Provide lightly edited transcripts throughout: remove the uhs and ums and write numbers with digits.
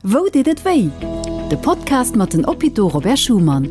Wou deet et wéi? De Podcast mat den Hôpitaux Robert Schuman.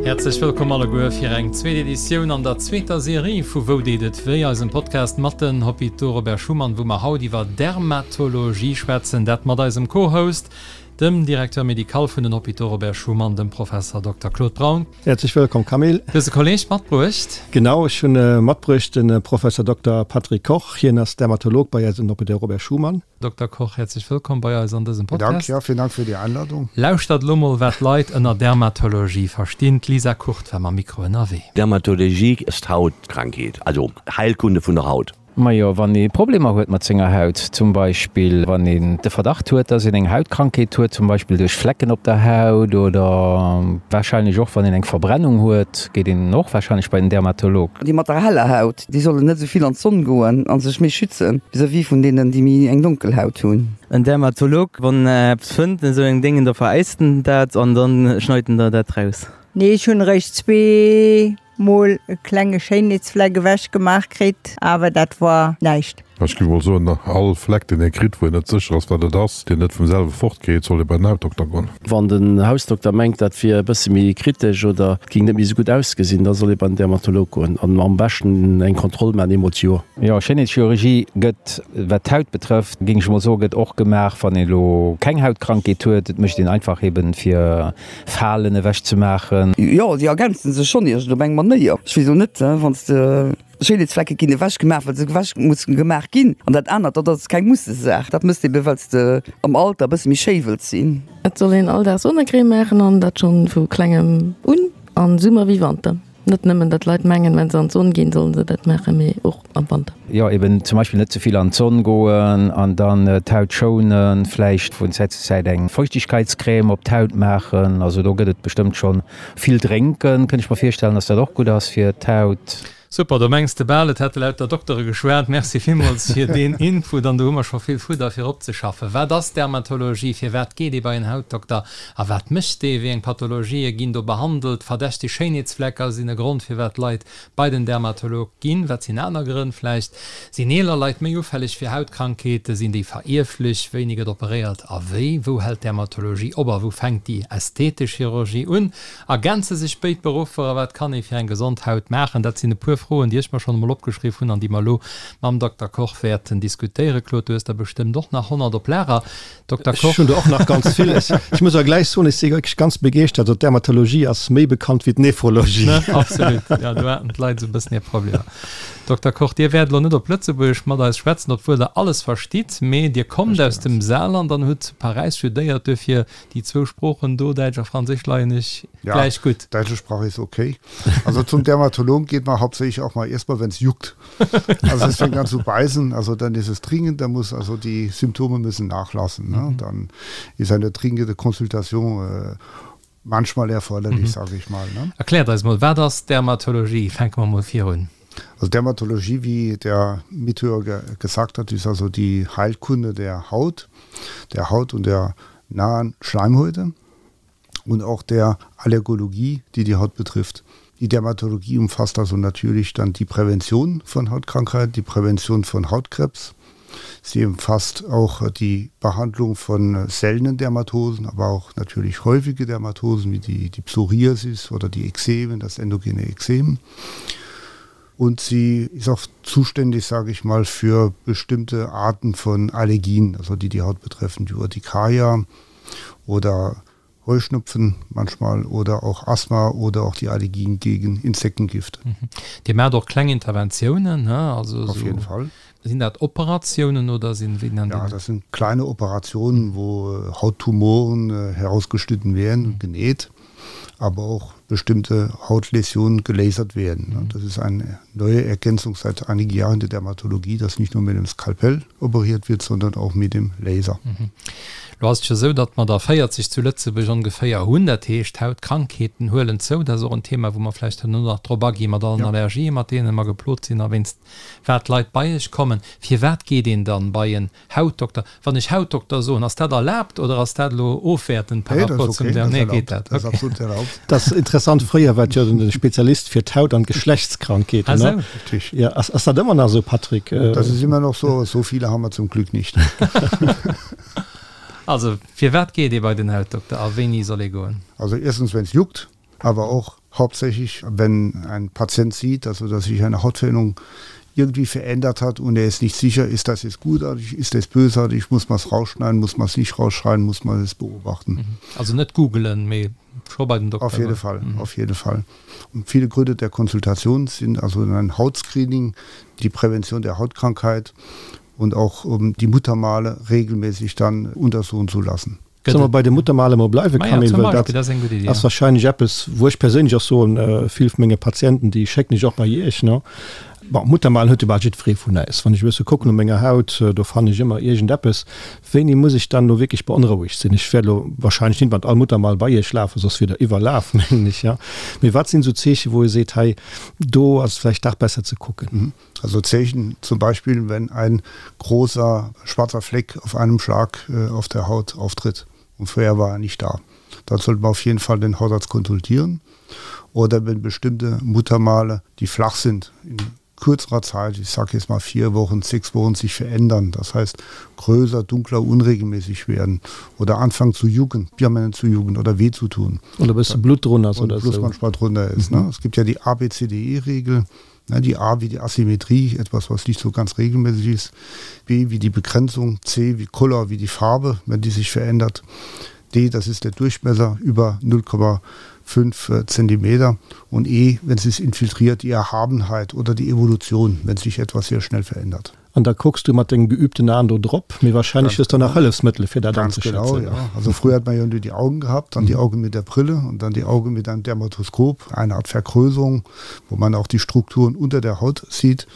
Häerzlech wëllkomm alleguer fir eng zweet Editioun an der zweeter Serie vu Wou deet et wéi? Eisem Podcast mat den Hôpitaux Robert Schuman, wou mer haut iwwer Dermatologie schwätzen. Dat mat eisem Co-Host, dem Directeur médical vun den Hôpitaux Robert Schuman, dem Professer Dokter Claude Braun. Häerzlech wëllkomm Camille. Du hues e Kolleg matbruecht. Genau, ech hunn matbruecht de Professer Dokter Patrick Koch. Hien ass Dermatolog bei eis um Hôpital Robert Schuman. Dokter Koch, häerzlech wëllkomm bei eis an dësem Podcast. Dank, ja, vielen Dank für die Einladung. Lauschtert elo mol, wat d'Leit ënner Dermatologie verstinn. D'Lisa Kurt war mam Mikro ënnerwee. Dermatologie ass d'Hautkrankheet, also Heilkunde vun der Haut. Majo, wann ee Problemer huet mat senger Haut, zum Beispill wann een de Verdacht huet, dass een eng Hautkrankheet huet, zum Beispill duerch Flecken op der Haut oder warscheinlech och wann een eng Verbrennung huet, geet een och warscheinlech bei den Dermatolog. Déi mat der heller Haut, Déi sollen net esou vill an d'Sonn goen a sech méi schützen vis-à-vis vun deenen, déi méi eng donkel Haut hunn. En Dermatolog, wann en eppes fënnt, esou eng Déngen, da veräist en dat an dann schneit en der dat raus. Nee, ech hunn eréischt zweemol e klenge Schéinheetsfleck ewech gemaach kritt, awer dat war näischt. Ech géif mol soen, all Fleck deen ee kritt, wou een net sécher ass wat et ass, deen net vum selwe fort geet, soll ee bei den Hautdokter goen. Wann den Hausdokter mengt, dat wier e bësse méi kritesch oder et géing net méi esou gutt ausgesinn, da soll ee bei den Dermatolog goen an am beschten eng Kontroll maachen, eemol d'Joer. Jo, Schéinheetschirurgie gëtt, wat d'Haut betrëfft, géing ech mol soen, gëtt och gemaach, wann een elo keng Hautkrankheet huet. Et mécht een einfach eben, fir Falen ewech ze maachen. Jo, déi ergänzen sech schonn iergend op eng Manéier. Ech weess elo net, wann s de. Schéinheetsflecke ginn ewech gemaach, well se ewech mussen gemaach ginn. An dat anert, dat ass keng Mussesaach. Dat mësst ebe well s de am Alter e bësse méi schéi wëlls sinn. Et soll een all Dag Sonnecrème maachen an dat schonn vu klengem un, an Summer wéi Wanter. Net nëmmen datt Leit mengen, wenn se an d'Sonn ginn, sollen se dat maachen, mee och am Wanter. Jo, eben zum Beispill net ze vill an d'Sonn goen an dann d'Haut schounen, vläicht vun Zäit zu Zäit eng Feuchtigkeitscrème op d'Haut maachen. Also do gëtt et bestëmmt schonn vill drénken, kënnt ech mer virstellen, datt dat och gutt ass fir d'Haut. Super, do mengs de bal et hätte lauter Doktere geschwat. Merci villmools fir deen Input an do hu mer scho vill Fudder fir opzeschaffen. Wat ass Dermatologie? Firwat geet ee bei en Hautdokter a wat mécht dee? Wéi eng Pathologië ginn do behandelt? Verdächteg Schéinheetsflecker sinn e Grond firwat Leit bei den Dermatolog ginn. Wat sinn aner Grënn vläicht? Sinn eeler Leit méi ufälleg fir Hautkrankheeten? Sinn déi verierflech? Wéini gëtt operéiert a wéi? Wou hält d'Dermatologie op a wou fänkt déi ästhetesch Chirurgie un? Ergänze sech béid Beruffer a wat kann ee fir eng gesond Haut maachen? Dat sinn e puer Froen, déi ech mer schonn emol opgeschriff hunn an déi mer elo mam Dokter Koch wäerten diskutéieren. Claude, du hues der bestëmmt och nach 100 op Lager. Dokter Koch. Ech hunn der och nach ganz vill. Ech muss awer gläich soen, ech si wierklech ganz begeeschtert. Also d'Dermatologie ass méi bekannt wéi d'Nephrologie. Ne? Absolut. Jo, do haten d'Leit esou e bëssen hir Problemer. Dokter Koch, Dir wäert elo net op Lëtzebuergesch mat eis schwätzen, obwuel Der alles verstitt, mee Dir kommt aus dem Saarland an hutt zu Paräis studéiert. Duerfir déi zwou Sproochen do, Däitsch a Franséisch, leien Iech gläich gutt. Ja, däitsche Sprach ist okay. Also zum Dermatologen geht man hauptsächlich auch mal erstmal, wenn es juckt. Also es fängt an zu beißen, also dann ist es dringend, da muss also die Symptome müssen nachlassen. Ne? Mhm. Dann ist eine dringende Konsultation äh, manchmal erforderlich, mhm. sage ich mal. Ne? Erkläert eis mol, wat ass Dermatologie? Fänke mer mol virun. Also Dermatologie, wie der Mithörer gesagt hat, ist also die Heilkunde der Haut, der Haut und der nahen Schleimhäute und auch der Allergologie, die die Haut betrifft. Die Dermatologie umfasst also natürlich dann die Prävention von Hautkrankheiten, die Prävention von Hautkrebs. Sie umfasst auch die Behandlung von seltenen Dermatosen, aber auch natürlich häufige Dermatosen wie die, die Psoriasis oder die Ekzemen, das endogene Ekzem. Und sie ist auch zuständig, sage ich mal, für bestimmte Arten von Allergien, also die die Haut betreffen, die Urtikaria oder Heuschnupfen manchmal oder auch Asthma oder auch die Allergien gegen Insektengift. Mhm. Dir maacht och kleng Interventiounen, ne? Also Auf jeden Fall. Sinn dat Operatiounen oder sinn, wéi nennt een dat? Ja, das sind kleine Operationen, wo Hauttumoren herausgeschnitten werden und genäht, aber auch bestimmte Hautläsionen gelasert werden. Das ist eine neue Ergänzung seit einigen Jahren in der Dermatologie, dass nicht nur mit dem Skalpell operiert wird, sondern auch mit dem Laser. Lo ass et jo esou, datt mer der 40 zu Lëtzebuerg ongeféier hunn. Dat heescht, d'Hautkrankheeten huelen zou. Dat ass och en Thema, wou mer vläicht herno nach drop agi mat allen Allergien, mat deene mer geplot sinn a wéinst wat d'Leit bei iech kommen. Firwat geet een dann bei en Hautdokter? Wann ech Hautdokter soen, ass dat erlaabt oder ass dat elo ofwäertend par rapport zum Der? Nee, geet dat? Okay. Dat ass interessant. Fréier war et jo den Spezialist fir d'Haut an d'Geschlechtskrankheeten. Ah sou. Richtig. Ja, ass, ass dat ëmmer nach esou, Patrick? Das ist immer noch so, so viele haben wir zum Glück nicht. Also, firwat geet ee bei den Hautdokter a wéini soll ee goen? Also erstens, wenn es juckt, aber auch hauptsächlich, wenn ein Patient sieht, also dass sich eine Hautveränderung irgendwie verändert hat und er ist nicht sicher, ist das jetzt gutartig, ist das bösartig, muss man es rausschneiden, muss man es nicht rausschneiden, muss man es beobachten. Mhm. Also net googelen, mee scho bei den Dokter Auf jede Fall, mhm. auf jede Fall. Und viele Gründe der Konsultation sind also ein Hautscreening, die Prävention der Hautkrankheit und auch um die Muttermale regelmäßig dann untersuchen zu lassen. Solle mer bei de Muttermale mol bleiwen, Camille, well dat ass wahrscheinlech eppes, wou ech perséinlech och soen, vill vu menge Patienten, déi schécken ech och bei Iech, ne? Bon, Muttermalen huet jo bal jiddweree vun äis. Wann ech e bësse kucken u menger Haut, do fannen ech ëmmer iergendeppes. Wéini muss ech dann elo wierklech beonrouegt sinn? Ech wäert elo wahrscheinlech nit mat all Muttermal bei Iech lafen, soss wier Der iwwerlaf, mengen ech, jo. Mee wat sinn esou Zeechen, wou ee seet, hei, do ass et vläicht dach besser ze kucken? Also Zeechen zum Beispiel, wenn ein großer schwarzer Fleck auf einem Schlag äh, auf der Haut auftritt und vorher war er nicht da. Dann sollte man auf jeden Fall den Hautarzt konsultieren oder wenn bestimmte Muttermale, die flach sind, in kürzerer Zeit, ich sage jetzt mal vier Wochen, sechs Wochen sich verändern, das heißt größer, dunkler, unregelmäßig werden oder anfangen zu jucken, permanent zu jucken oder weh zu tun. Oder bis Blut drunter ist oder so. manchmal drunter ist. Mhm. Ne? Es gibt ja die ABCDE-Regel, die A wie die Asymmetrie, etwas was nicht so ganz regelmäßig ist, B wie die Begrenzung, C wie Color wie die Farbe, wenn die sich verändert. D, das ist der Durchmesser über 0,5 äh, Zentimeter und E, wenn es infiltriert, die Erhabenheit oder die Evolution, wenn sich etwas sehr schnell verändert. An da kucks du mat dengem geübten Aen do drop, mee wahrscheinlech hues de nach Hëllefsmëttele fir dat anzeschätzen. Ganz genau, ja. Also früher hat man ja nur die Augen gehabt, dann die Augen mit der Brille und dann die Augen mit einem Dermatoskop, eine Art Vergrößerung, wo man auch die Strukturen unter der Haut sieht.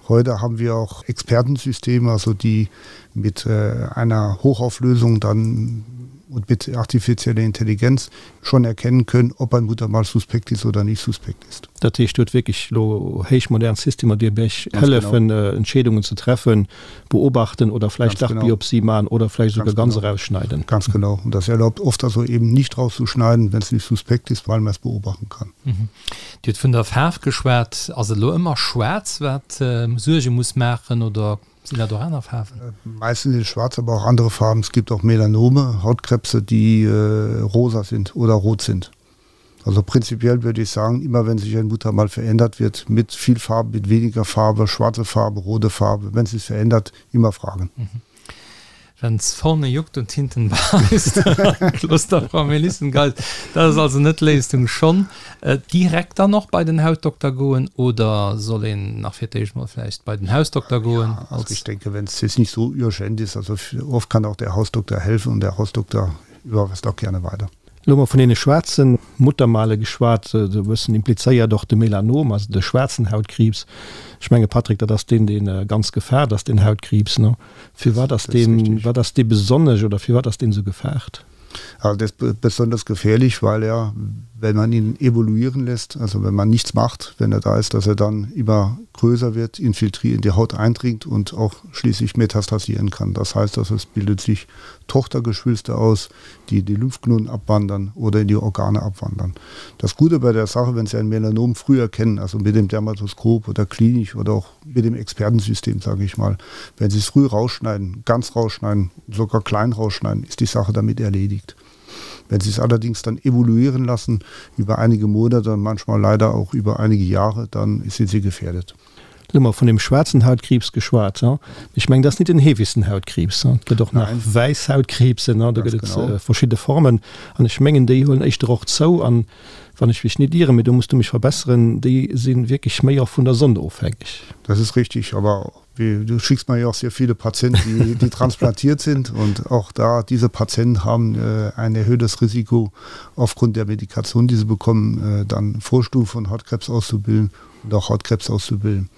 Heute haben wir auch Expertensysteme, also die mit äh, einer Hochauflösung dann und mit artifizieller Intelligenz schon erkennen können, ob ein Muttermal suspekt ist oder nicht suspekt ist. Dat heescht, Dir hutt wierklech elo héichmodern Systemer, déi Iech hëllefen, Entscheedungen ze treffen, beobachten oder vläicht dach Biopsie maachen oder vläicht esouguer ganz erausschneiden. Ganz genau. Und das erlaubt oft also eben nicht rauszuschneiden, wenn es nicht suspekt ist, weil man es beobachten kann. Dir hutt vun der Faarf geschwat. Ass et elo ëmmer schwaarz, wat Suerge muss maachen oder Sinn dat och aner Faarwen? Meistens ist schwarz, aber auch andere Farben. Es gibt auch Melanome, Hautkrebse, die äh, rosa sind oder rot sind. Also prinzipiell würde ich sagen, immer wenn sich ein Muttermal verändert wird, mit viel Farbe, mit weniger Farbe, schwarze Farbe, rote Farbe, wenn sich verändert, immer fragen. Mhm. Wenn's vorne juckt und hinten beißt, Kloster Melissengeist, dat ass also net d'Léisung. Schonn direkt dann och bei den Hautdokter goen oder soll een nach fir d'éischt mol vläicht bei den Hausdokter goen? Ja, also ich denke, wenn es jetzt nicht so urgent ist, also oft kann auch der Hausdokter helfen und der Hausdokter überweist auch gerne weiter. Elo hu mer vun deene schwaarze Muttermale geschwat, esou e bëssen implizéiert och de Melanom, also de schwaarzen Hautkriibs. Ech menge Patrick, dat ass deen, dee ganz gefaart ass, deen Hautkriibs, ne? Firwat ass deen, wat ass dee besonnesch oder firwat ass deen esou gefaart? Also der ist besonders gefährlich, weil er, wenn man ihn evoluieren lässt, also wenn man nichts macht, wenn er da ist, dass er dann immer größer wird, infiltriert, in die Haut eindringt und auch schließlich metastasieren kann. Das heißt, dass es bildet sich Tochtergeschwülste aus, die die Lymphknoten abwandern oder in die Organe abwandern. Das Gute bei der Sache, wenn Sie ein Melanom früh erkennen, also mit dem Dermatoskop oder klinisch oder auch mit dem Expertensystem, sage ich mal, wenn Sie es früh rausschneiden, ganz rausschneiden, sogar klein rausschneiden, ist die Sache damit erledigt. Wenn Sie es allerdings dann evoluieren lassen über einige Monate, manchmal leider auch über einige Jahre, dann sind Sie gefährdet. Lo hu mer vun dem schwaarzen Hautkriibs geschwat. Ech mengen, dat ass nit den heefegsten Hautkriibs. Et gëtt och nach wäiss Hautkriibsen, do gëtt et verschidde Formen. An ech mengen, déi huelen éischter och zou. An wann ech mech nit ieren, mee do muss du mech verbesseren, déi si wierklech méi och vun der Sonn ofhängeg. Das ist richtig, aber du schickst mir ja auch sehr viele Patienten, die, die transplantiert sind und auch da diese Patienten haben äh, ein erhöhtes Risiko aufgrund der Medikation, die sie bekommen, äh, dann Vorstufen von Hautkrebs auszubilden und auch Hautkrebs auszubilden.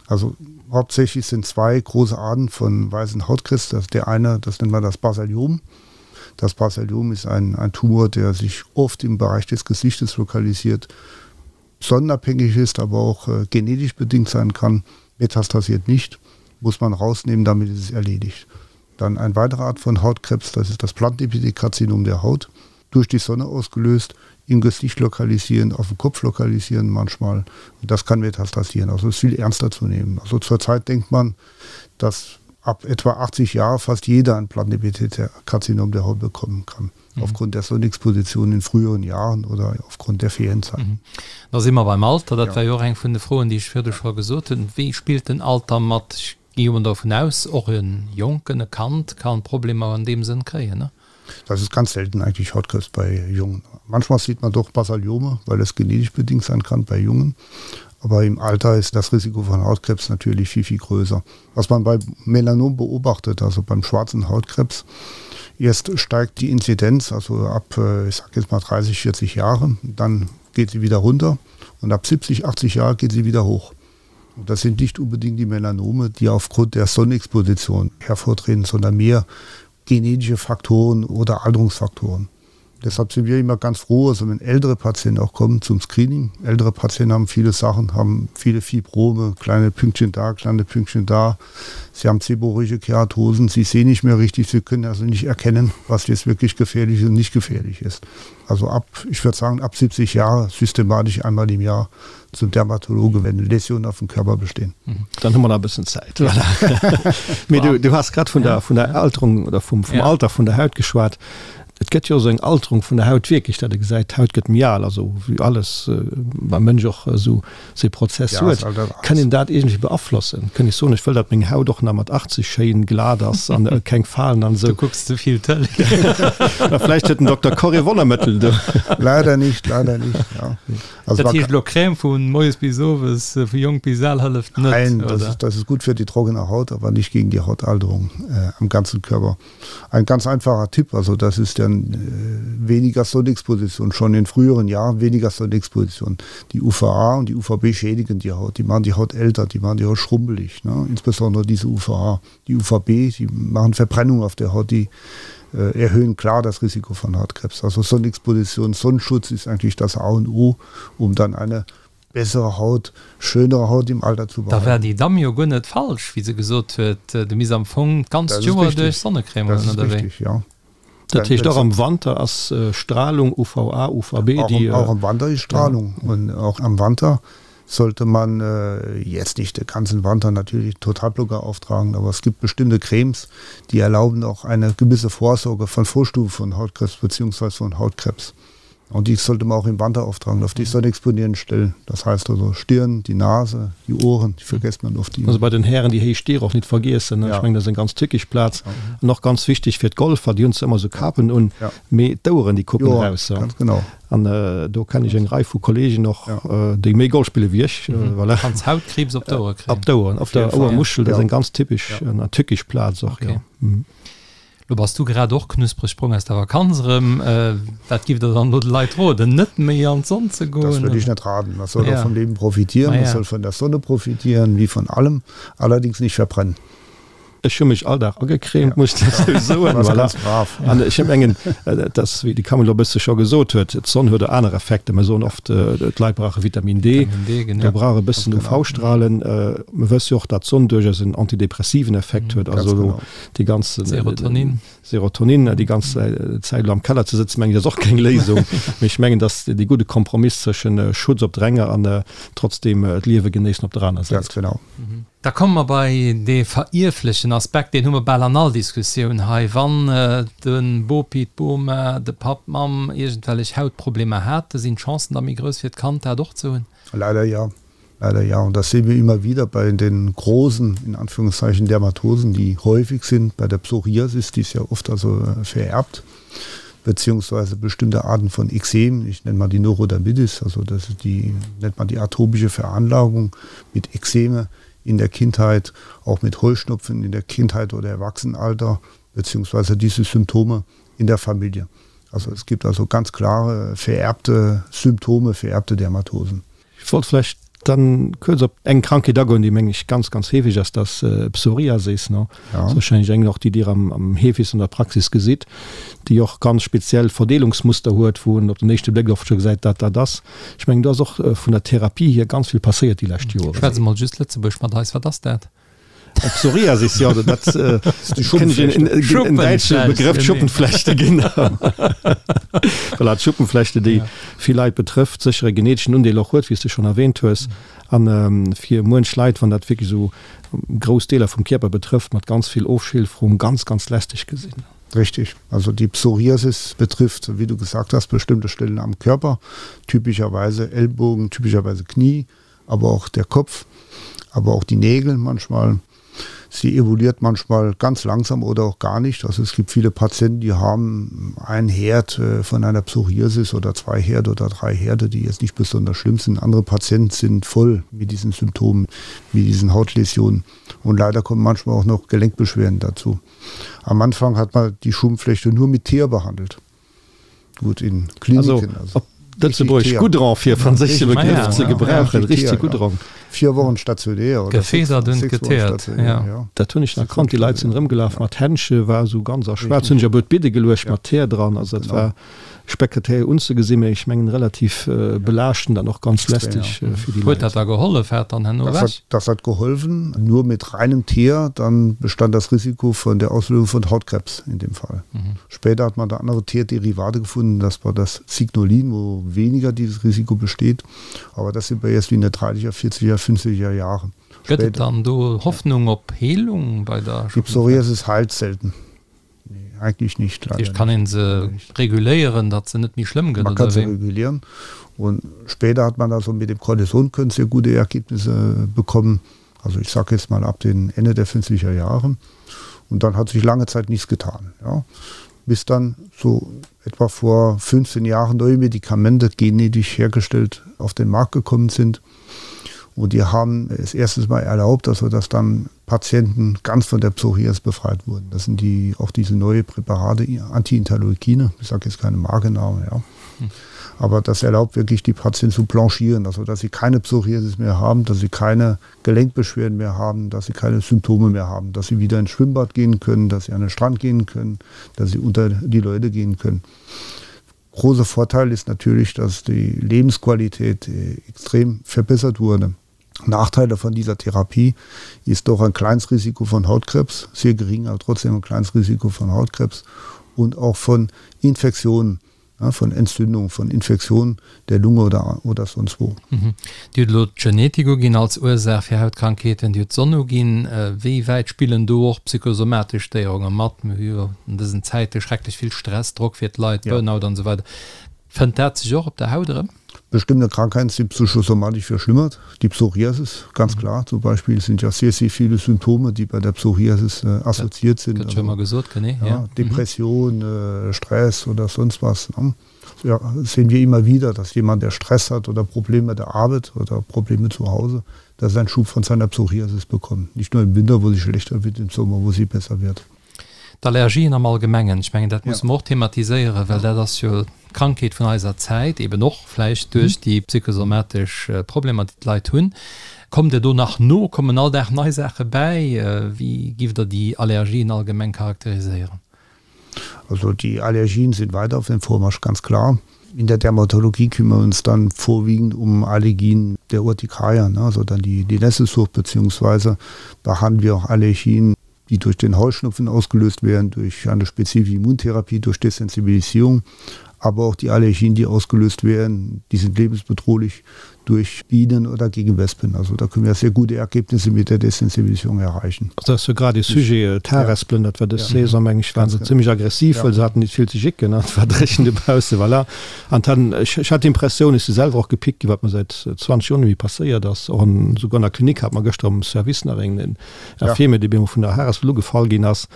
Also hauptsächlich sind zwei große Arten von weißen Hautkrebs. Das der eine, das nennt man das Basaliom. Das Basaliom ist ein, ein Tumor, der sich oft im Bereich des Gesichtes lokalisiert, sonnenabhängig ist, aber auch äh, genetisch bedingt sein kann. Metastasiert nicht, muss man rausnehmen, damit ist es erledigt. Dann ein weitere Art von Hautkrebs, das ist das Plantenepithelkarzinom der Haut, durch die Sonne ausgelöst, im Gesicht lokalisieren, auf dem Kopf lokalisieren manchmal. Und das kann metastasieren. Also ist viel ernster zu nehmen. Also zurzeit denkt man, dass. ab etwa 80 Jahre fast jeder ein Plattenepithelkarzinom der Haut bekommen kann. Mhm. Aufgrund der Sonnenexposition in früheren Jahren oder aufgrund der Ferienzeit. Mhm. Da si mer beim Alter, dat ja. war jo och eng vun de Froen, déi ech virdu scho gesot hunn. Wéi spillt den Alter mat? Ech gi jo dovun aus, och e Jonken, e Kand kann Problemer an deem Sënn kréien, ne? Das ist ganz selten eigentlich Hautkrebs bei Jungen. Manchmal sieht man doch Basaliome, weil es genetisch bedingt sein kann bei Jungen. Aber im Alter ist das Risiko von Hautkrebs natürlich viel, viel größer. Was man bei Melanom beobachtet, also beim schwarzen Hautkrebs, erst steigt die Inzidenz, also ab, äh, ich sag jetzt mal 30, 40 Jahre, dann geht sie wieder runter und ab 70, 80 Jahre geht sie wieder hoch. Und das sind nicht unbedingt die Melanome, die aufgrund der Sonnenexposition hervortreten, sondern mehr genetische Faktoren oder Alterungsfaktoren. Deshalb sind wir immer ganz froh, also wenn ältere Patienten auch kommen zum Screening. Ältere Patienten haben viele Sachen, haben viele Fibrome, kleine Pünktchen da, kleine Pünktchen da. Sie haben seborrhoische Keratosen, sie sehen nicht mehr richtig, sie können also nicht erkennen, was jetzt wirklich gefährlich und nicht gefährlich ist. Also ab, ich würde sagen, ab 70 Jahre systematisch einmal im Jahr zum Dermatologe, wenn Läsionen auf dem Körper bestehen. Mhm. Dann hu mer nach e bëssen Zäit. Voilà. Mee du, du has grad vun der, vun der Alterung oder vum, vum ja. Alter vun der Haut geschwat. Et gëtt jo esou eng Alterung vun der Haut wierklech, dat e gesäit, d'Haut gëtt méi al, also wéi alles beim Mënsch och esou see Prozess huet. Kann een dat iergendwéi beaflossen? Kënn ech soen, ech wëll, datt meng Haut och nach mat 80 schéin glat ass an keng Falen an esou? Du kucks ze vill Tëlee. Mä vläicht huet den Dokter Corre Wonnermëttel do. Leider nicht, leider nicht, ja. Also dat heescht elo Crème vu moies bis owes, vu jonk bis al hëlleft net? Nein, das ist, das ist gut für die trockene Haut, aber nicht gegen die Hautalterung äh, am ganzen Körper. Ein ganz einfacher Tipp, also das ist dann äh, weniger Sonnenexposition, schon in früheren Jahren weniger Sonnenexposition. Die UVA und die UVB schädigen die Haut, die machen die Haut älter, die machen die Haut schrumpelig, ne? insbesondere diese UVA. Die UVB, die machen Verbrennung auf der Haut, die äh, erhöhen klar das Risiko von Hautkrebs. Also Sonnenexposition, Sonnenschutz ist eigentlich das A und O, um dann eine bessere Haut, schönere Haut im Alter zu behalten. Da war déi Damm jo guer net falsch, wéi se gesot huet, du misst am Fong d'ganzt Joer duerch Sonnecrème hunn, oder wéi? Das ist richtig, ja. Dat heescht och am Wanter ass Strahlung, UVA, UVB, déi. Auch am Wanter ist Strahlung und auch am Wanter sollte man jetzt nicht den ganzen Wanter natürlich Totalblocker auftragen, aber es gibt bestimmte Cremes, die erlauben auch eine gewisse Vorsorge von Vorstufen von Hautkrebs beziehungsweise von Hautkrebs. Und die sollte man auch im Wanter auftragen, auf die sonnexponierten Stellen. Das heißt also Stirn, die Nase, die Ohren, die vergisst man oft. Also bei den Hären déi héich Stier och nit vergiessen, ech mengen dat ass eng ganz tückisch Plaz. An och ganz wichteg fir d'Golfer, déi hunn zwar ëmmer esou Kapen un, mee d'Oueren déi kucken eraus. Ganz genau. An do kennen ech eng Rei vu Kollegen och, déi méi Golf spille wéi ech. Voilà. Kanns Hautkriibs op d'Ouere kréien. Op d'Oueren, op der Ouermuschel, dat ass eng ganz typesch an tückisch Plaz och, jo. Lo bass du grad och knuspreg brong aus der Vakanz erëm. Wat giff der dann elo de Leit roden? Net méi an d'Sonn ze goen? Das würde ich net raten. Man soll doch vom Leben profitieren, man soll von der Sonne profitieren, wie von allem, allerdings nicht verbrennen. Ech hu mech all Dag agecremt, muss ech dozou soen. Warst ganz brav. An ech mengen, et ass, wéi de Camille elo e bësse scho gesot huet, d'Sonn huet och aner Effekter. Mir soen oft, d'Leit brauche Vitamin D, mir brauche e bëssen UV-Strahlen. Mir wësse jo och, datt d'Sonn duerchaus en antidepressiven Effekt huet. Also elo déi ganz Serotonin. Serotonin, déi ganz Zäit elo am Keller ze sëtzen, mengen ech, ass och keng Léisung. Mee ech mengen, dass dee gudde Kompromiss zwëschen Schutz op der enger an trotzdem d'Liewe genéissen op der aner Säit. Ganz genau. Da komme mer bei dee verierflechen Aspekt, deen hu mer bal an all Diskussioun hei, Wann de Bopi, d'Boma, de Papp, d'Mamm iergendwellech Hautproblemer hate, sinn d'Chancen da méi grouss fir d'Kand dat och ze hunn? Leider ja. Leider ja. Und das sehen wir immer wieder bei den großen, in Anführungszeichen, Dermatosen, die häufig sind. Bei der Psoriasis, die ist ja oft also äh, vererbt, beziehungsweise bestimmte Arten von Ekzem, ich nenne mal die Neurodermitis, also das ist die, nennt man die atopische Veranlagung mit Ekzeme in der Kindheit, auch mit Heuschnupfen in der Kindheit oder Erwachsenenalter, beziehungsweise diese Symptome in der Familie. Also es gibt also ganz klare vererbte Symptome, vererbte Dermatosen. Ech wollt vläicht dann kuerz op eng Krankheet agoen, déi meng ech ganz, ganz heefeg ass, dat ass Psoriasis. Ne? Ja. Dat ass wahrscheinlech eng och, déi Dir am, am heefegsten an der Praxis gesitt, déi och ganz speziell Verdeelungsmuster huet, wou en op den éischte Bléck oft scho gesäit, wat dat ass. Ech mengen, do ass och vun der Therapie hier ganz vill passéiert déi lescht Joren. Schwätz emol just Lëtzebuergesch mat eis, wat ass dat? Psoriasis, jo, dat kenn ech en däitsche Begrëff, Schuppenflechte, genau. Voilà, d'Schuppenflechte, déi vill Leit betrëfft, sécher e geneteschen Undeel och huet, wéi s de schonn erwähnt hues, a fir muench Leit, wann dat wierklech esou grouss Deeler vum Kierper betrëfft, mat ganz vill Ofschilferung, ganz, ganz lästeg gesinn. Richtig. Also die Psoriasis betrifft, wie du gesagt hast, bestimmte Stellen am Körper, typischerweise Ellbogen, typischerweise Knie, aber auch der Kopf, aber auch die Nägel manchmal. Sie evoluiert manchmal ganz langsam oder auch gar nicht. Also es gibt viele Patienten, die haben einen Herd äh, von einer Psoriasis oder zwei Herde oder drei Herde, die jetzt nicht besonders schlimm sind. Andere Patienten sind voll mit diesen Symptomen, mit diesen Hautläsionen. Und leider kommen manchmal auch noch Gelenkbeschwerden dazu. Am Anfang hat man die Schuppenflechte nur mit Teer behandelt. Gut in Kliniken. Also, op Lëtzebuerg Goudron fir franséische Begrëff ze gebrauchen, richteg Goudron. Vier Wochen stationär oder Gefedert und geteert, ja. Dat hunn ech nach kannt, déi Leit sinn erëmgelaf mat Händche, war esou ganz a schwaarz, hunn ech op d'Bidde geluecht mat Teer dran, also dat war spektakulär unzegesinn, mee ech mengen relativ belaaschtend an och ganz lästeg fir déi Huet Leit. dat da gehollef? War et dann herno ewech? Das hat geholfen, nur mit reinem Teer, dann bestand das Risiko von der Auslösung von Hautkrebs in dem Fall. Später hat man da andere Teerderivate gefunden, das war das Signolin, wo weniger dieses Risiko besteht. Aber das sind wir erst in der 30er, 40er, 50er Jahre. Gëtt et dann do Hoffnung op Heelung bei der Die Psoriasis heilt selten. Nee, eigentlich nicht. Dat heescht, kann een se reguléieren, datt se net méi schlëmm gëtt, Man kann se regulieren. Und später hat man also mit dem Cortison können sehr gute Ergebnisse bekommen. Also ich sage jetzt mal ab den Ende der 50er Jahre. Und dann hat sich lange Zeit nichts getan. Ja. Bis dann so etwa vor 15 Jahren neue Medikamente genetisch hergestellt auf den Markt gekommen sind. Und die haben es erstens mal erlaubt, also dass dann Patienten ganz von der Psoriasis befreit wurden. Das sind die auch diese neue Präparate Antiinterleukine, ich sage jetzt keine Markenname, ja. Hm. Aber das erlaubt wirklich die Patienten zu blanchieren, also dass sie keine Psoriasis mehr haben, dass sie keine Gelenkbeschwerden mehr haben, dass sie keine Symptome mehr haben, dass sie wieder ins Schwimmbad gehen können, dass sie an den Strand gehen können, dass sie unter die Leute gehen können. Großer Vorteil ist natürlich, dass die Lebensqualität äh, extrem verbessert wurde. Nachteile von dieser Therapie ist doch ein kleines Risiko von Hautkrebs, sehr gering, aber trotzdem ein kleines Risiko von Hautkrebs und auch von Infektionen ja, von Entzündung, von Infektionen der Lunge oder, oder sonst wo. Mhm. Dir hutt elo d'Genetik uginn als Ursaach fir Hautkrankheeten, Dir hutt d'Sonn uginn. Wéi wäit spillen do och psychosomatesch Stéierunge mat? Mir hu jo an dësen Zäite schrecklech vill Stress, Drock fir d'Leit, ja. Burnout an esou weider. Fënnt dat sech och op der Haut erëm? Bestimmte Krankheiten sind psychosomatisch verschlimmert. Die Psoriasis, ganz mhm. klar, zum Beispiel sind ja sehr, sehr viele Symptome, die bei der Psoriasis äh, assoziiert sind. Also, schon mal gesagt, nee, ja, ja. Depression, mhm. äh, Stress oder sonst was. Ne? Ja, sehen wir immer wieder, dass jemand, der Stress hat oder Probleme der Arbeit oder Probleme zu Hause, dass er einen Schub von seiner Psoriasis bekommt. Nicht nur im Winter, wo sie schlechter wird, im Sommer, wo sie besser wird. D'Allergien am Allgemengen, ech mengen, dat musse mer och thematiséieren, well dat ass jo d'Krankheet vun eiser Zäit, eben och vläicht duerch déi psychosomatesch Problemer, déi d'Leit hunn. Kommt Der do nach no? Kommen all Dag nei Saache bäi? Wéi giff Der déi Allergien allgemeng charakteriséieren? Also die Allergien sind weiter auf dem Vormarsch, ganz klar. In der Dermatologie kümmern wir uns dann vorwiegend um Allergien der Urtikaria, ne, also dann die, die Nesselsucht, beziehungsweise behandeln wir auch Allergien, die durch den Heuschnupfen ausgelöst werden, durch eine spezifische Immuntherapie, durch Desensibilisierung, aber auch die Allergien, die ausgelöst werden, die sind lebensbedrohlich durch Bienen oder gegen Wespen. Also da können wir sehr gute Ergebnisse mit der Desensibilisierung erreichen. Also dat ass jo grad ee Sujet, d'Harespelen, dat war dës Saison, meng ech, waren se zimmlech aggressiv, well se haten nit vill ze jicken an et war dréchen dobausse, voilà. An dann, ech hat d'Impressioun, ech si selwer och gepickt ginn, wat mer säit 20 Joer net méi passéiert ass, och an, souguer an der Klinik hat mer gëschter am Service nach een, en Infirmier, dee bemol vun der Harespel ugefall ginn ass.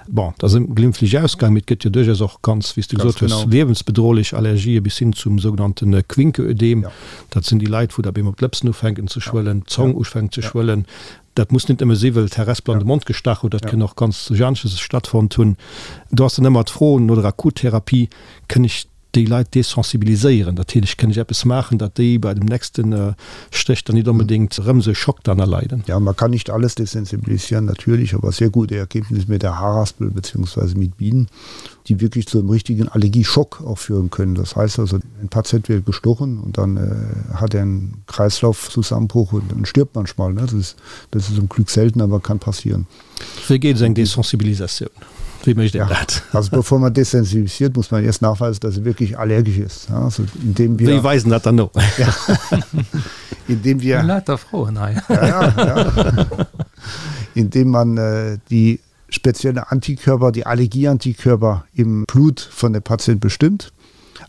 Bon, dat ass glimpflech ausgaang, mee et gëtt jo duerchaus och ganz, wéi s de gesot hues, liewensbedrohlech Allergië bis hin zum sougenannte Quincke-Ödem. Dat sinn déi Leit, wou da bemol d'Lëpsen ufänken ze schwëllen, d'Zong ufänkt ze schwëllen. Dat muss net nëmme si well d'Harespel an de Mond gestach huet, dat kënn och ganz duerch anesches stattfonnt hunn. Do ass dann ëmmer d'Fro no der Akuttherapie, Kënn ech. déi Leit desensibiliséieren? Dat heescht, kënn ech eppes maachen, datt déi bei dem nächste Stéch dann nit onbedéngt erëm esou e Schock dann erleiden? Ja, man kann nicht alles desensibilisieren, natürlich, aber sehr gute Ergebnisse mit der Haarraspel beziehungsweise mit Bienen, die wirklich zu einem richtigen Allergieschock auch führen können. Das heißt also, ein Patient wird gestochen und dann äh, hat er einen Kreislaufzusammenbruch und dann stirbt manchmal. Ne? Das ist, das ist zum Glück selten, aber kann passieren. Wéi geet esou eng Desensibilisatioun? Wéi mécht een dat? Also bevor man desensibilisiert, muss man erst nachweisen, dass er wirklich allergisch ist. Also indem wir Wéi weisen dat dann no? Ja. Indem wir Lauter Froen hei. Ja, ja, ja. Indem man äh, die spezielle Antikörper, die Allergieantikörper im Blut von der Patient bestimmt,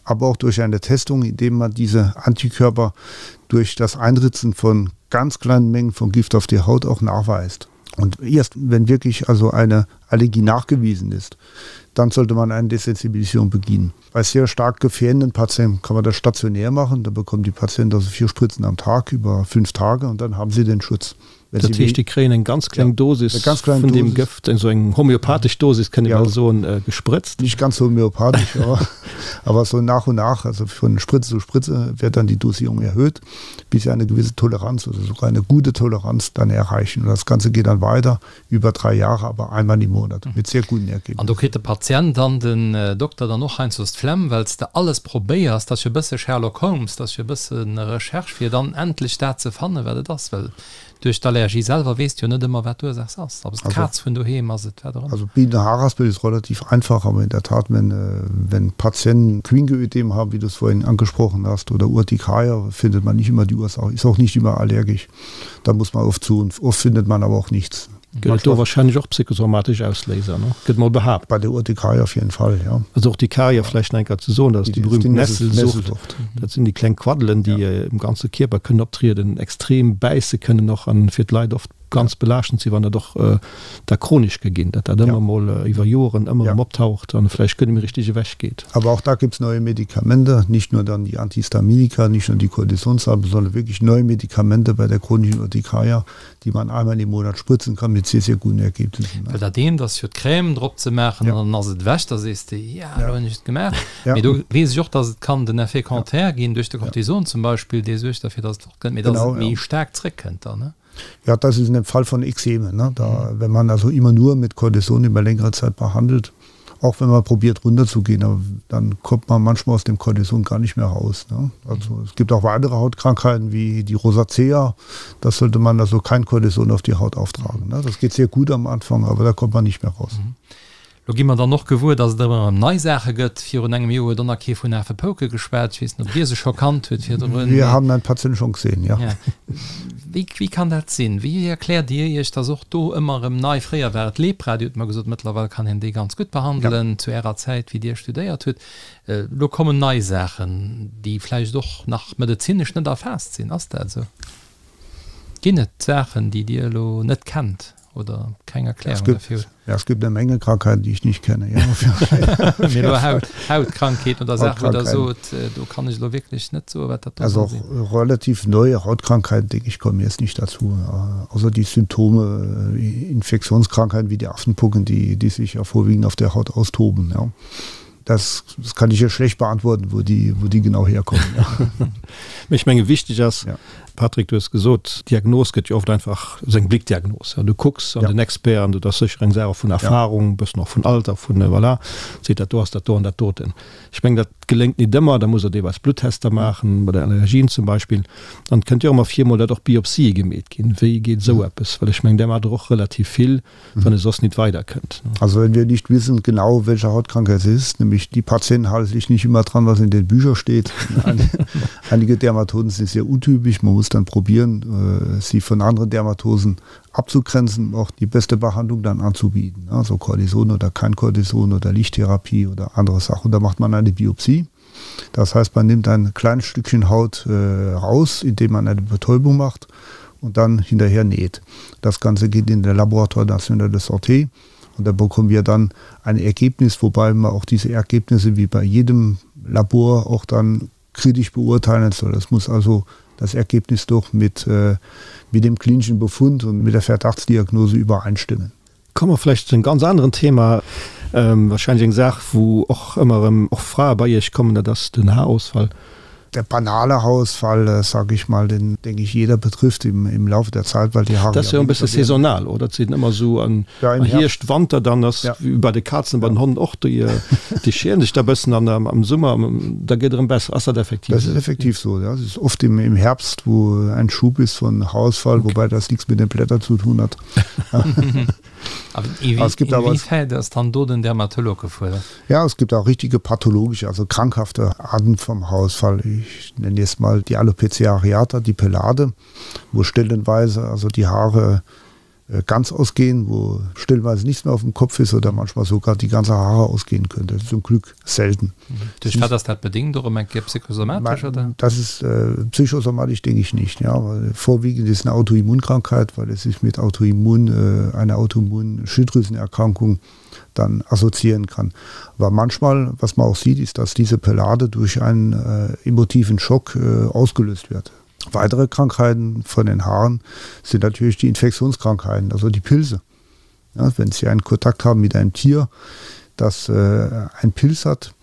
aber auch durch eine Testung, indem man diese Antikörper durch das Einritzen von ganz kleinen Mengen von Gift auf die Haut auch nachweist. Und erst wenn wirklich also eine Allergie nachgewiesen ist, dann sollte man eine Desensibilisierung beginnen. Bei sehr stark gefährdenden Patienten kann man das stationär machen, da bekommen die Patienten also vier Spritzen am Tag über fünf Tage und dann haben sie den Schutz. Dat heescht, déi kréien eng ganz kleng Dosis vun deem Gëft, esou eng homöopathesch Dosis, kënnt ee bal soen, gesprëtzt. Nicht ganz homöopathisch, aber so nach und nach, also von Spritze zu Spritze wird dann die Dosierung erhöht, bis sie eine gewisse Toleranz oder sogar eine gute Toleranz dann erreichen. Und das Ganze geht dann weiter über drei Jahre, aber einmal im Monat mit sehr guten Ergebnissen. An do kritt de Patient an den Dokter dann och heiansdo d'Flemm, well s de alles probéiers. Dat ass jo e bësse Sherlock Holmes, dat ass jo e bësse Recherche, fir dann endlech dat ze fannen, wat et ass. Well duerch d'Allergie selwer weess de jo net ëmmer, wat d'Ursaach ass. Ob et d'Kaz vun doheem ass, et wat och ëmmer. Also Bienenhaaraspel ist relativ einfach, aber in der Tat, wenn, wenn Patienten Quinckeödem haben, wie du es vorhin angesprochen hast, oder Urtikaria, findet man nicht immer die Ursache, ist auch nicht immer allergisch. Da muss man oft suchen, oft findet man aber auch nichts. Gëtt et do wahrscheinlech och psychosomatesch Ausléiser, ne? Gëtt mol behaapt. Bei der Urtikaria auf jeden Fall, ja. Also Urtikaria vläicht nach eng Kéier ze soen, dat ass déi berühmt Nesselsucht. Dat sinn déi kleng Quaddelen, déi um ganze Kierper kënnen optrieden, extrem bäisse kënnen och an fir d'Leit oft ganz belaaschtend sinn, wann dat och da chronesch ka ginn, datt dat ëmmer mol iwwer Joren ëmmer erëm optaucht an vläicht guer net méi richteg ewech geet. Aber auch da gibt's neue Medikamente, nicht nur dann die Antihistaminika, nicht nur die Kortisonsalben, sondern wirklich neue Medikamente bei der chronischen Urtikaria, die man einmal im Monat spritzen kann mit sehr, sehr guten Ergebnissen. Well dat eent ass jo d'Crème drop ze maachen an dann ass et ewech, da sees de, ja, elo hunn ech et gemaach. Mee do weess ech och, datt et kann den Effet contraire ginn duerch de Cortison zum Beispill, dee suergt derfir, datt et fortkënnt, mee datt et méi staark zréckkënnt dann, ne? Ja, das ist in dem Fall von Ekzemen, ne? Da, wenn man also immer nur mit Cortison über längere Zeit behandelt, auch wenn man probiert runterzugehen, aber dann kommt man manchmal aus dem Cortison gar nicht mehr raus, ne? Also es gibt auch weitere Hautkrankheiten wie die Rosacea, da sollte man also kein Cortison auf die Haut auftragen, ne? Das geht sehr gut am Anfang, aber da kommt man nicht mehr raus. Lo gi mer dann och gewuer, dass et ëmmer erëm nei Saache gëtt. Virun engem Joer huet och nach kee vun Afepouke geschwat. Ech weess net, ob Dir se scho kannt hutt virdrun. Wir haben ein Patient schon gesehen, ja. Ja. Wéi, wéi kann dat sinn? Wéi erkläert Dir Iech, dass och do ëmmer erëm nei, fréier war et Lepra, Dir hutt mer gesot, mëttlerweil kann een déi ganz gutt behandelen, zu Ärer Zäit, wéi Dir studéiert hutt. Elo kommen nei Saachen, déi vläicht och nach medezinesch net erfaasst sinn. Ass dat esou? Ginn et Saachen, déi Dir elo net kennt? Oder keng Erklärung dafür hutt. Ja, es gibt eine Menge Krankheiten, die ich nicht kenne. Ja. Mee elo Haut, Hautkrankheeten oder Saachen, wou Der sot, do kann ech elo wierklech net soen, wat dat do soll sinn. Also auch relativ neue Hautkrankheiten, denke ich, kommen jetzt nicht dazu. Außer die Symptome, Infektionskrankheiten wie die Affenpocken, die, die sich ja vorwiegend auf der Haut austoben. Ja. Das, das kann ich hier schlecht beantworten, wo die, wo die genau herkommen. Ja. Mee ech menge wichteg ass, ja. Patrick, du hues gesot, d'Diagnos gëtt jo oft einfach esou eng Blickdiagnos. Ja, du kucks an ja. den Expert an du dat ass sécher eng Saach och vun Erfahrung, ja. bëssen och vun Alter, vun voilà, seet dat do ass dat do an dat doten. Ech meng dat geléngt nit ëmmer, da muss der deelweis Bluttester maachen, bei der Allergien zum Beispill. An et kënnt jo och ëmmer vir mol, datt och Biopsië gemeet ginn. Wéi geet esou eppes? Well ech meng, där maacht der och relativ vill. wann e soss nit weiderkënnt. Also wenn wir nicht wissen genau, welche Hautkrankheit es ist, nämlich die Patienten halten sich nicht immer dran, was in den Büchern steht. Einige Dermatosen sind sehr untypisch, man muss dann probieren, sie von anderen Dermatosen abzugrenzen, auch die beste Behandlung dann anzubieten. Also Cortison oder kein Cortison oder Lichttherapie oder andere Sachen. Da macht man eine Biopsie. Das heißt, man nimmt ein kleines Stückchen Haut äh, raus, indem man eine Betäubung macht und dann hinterher näht. Das Ganze geht in der Laboratoire National de Santé und da bekommen wir dann ein Ergebnis, wobei man auch diese Ergebnisse wie bei jedem Labor auch dann kritisch beurteilen soll. Das muss also das Ergebnis doch mit, äh, mit dem klinischen Befund und mit der Verdachtsdiagnose übereinstimmen. Komme mer vläicht zu engem ganz aneren Thema, wahrscheinlech eng Saach, wou och ëmmer erëm och Frae bei Iech kommen, dat ass den Haarausfall. Der banale Haarausfall, sag ich mal, den, denke ich, jeder betrifft im, im Laufe der Zeit, weil die Haare Dat ass jo e bësse saisonal, oder? Et sinn ëmmer esou an Hierscht, Wanter, dann ass wéi bei de Kazen, bei den Honnen och, déi, déi scheren sech da e bëssen an am Summer, da gëtt erëm besser. Ass dat effektiv esou? Das ist effektiv so, ja. Es ist oft im, im Herbst, wo ein Schub ist von Haarausfall, wobei das nichts mit den Blättern zu tun hat. Inwiefern ass dann do den Dermatolog gefuerdert? Ja, es gibt auch richtige pathologische, also krankhafte Arten vom Haarausfall. Ich nenne jetzt mal die Alopecia areata, die Pelade, wo stellenweise also die Haare ganz ausgehen, wo stellenweise nichts mehr auf dem Kopf ist oder manchmal sogar die ganze Haare ausgehen können. Das ist zum Glück selten. Duerch wat ass dat bedingt? Och ëm eng Kéier psychosomatesch, oder? Das ist äh, psychosomatisch denke ich nicht. Ja, weil vorwiegend ist eine Autoimmunkrankheit, weil es sich mit Autoimmun, äh, einer Autoimmun-Schilddrüsenerkrankung dann assoziieren kann. Aber manchmal, was man auch sieht, ist, dass diese Pelade durch einen äh, emotiven Schock äh, ausgelöst wird. Weitere Krankheiten von den Haaren sind natürlich die Infektionskrankheiten, also die Pilze. Ja, wenn Sie einen Kontakt haben mit einem Tier, das äh, einen Pilz hat,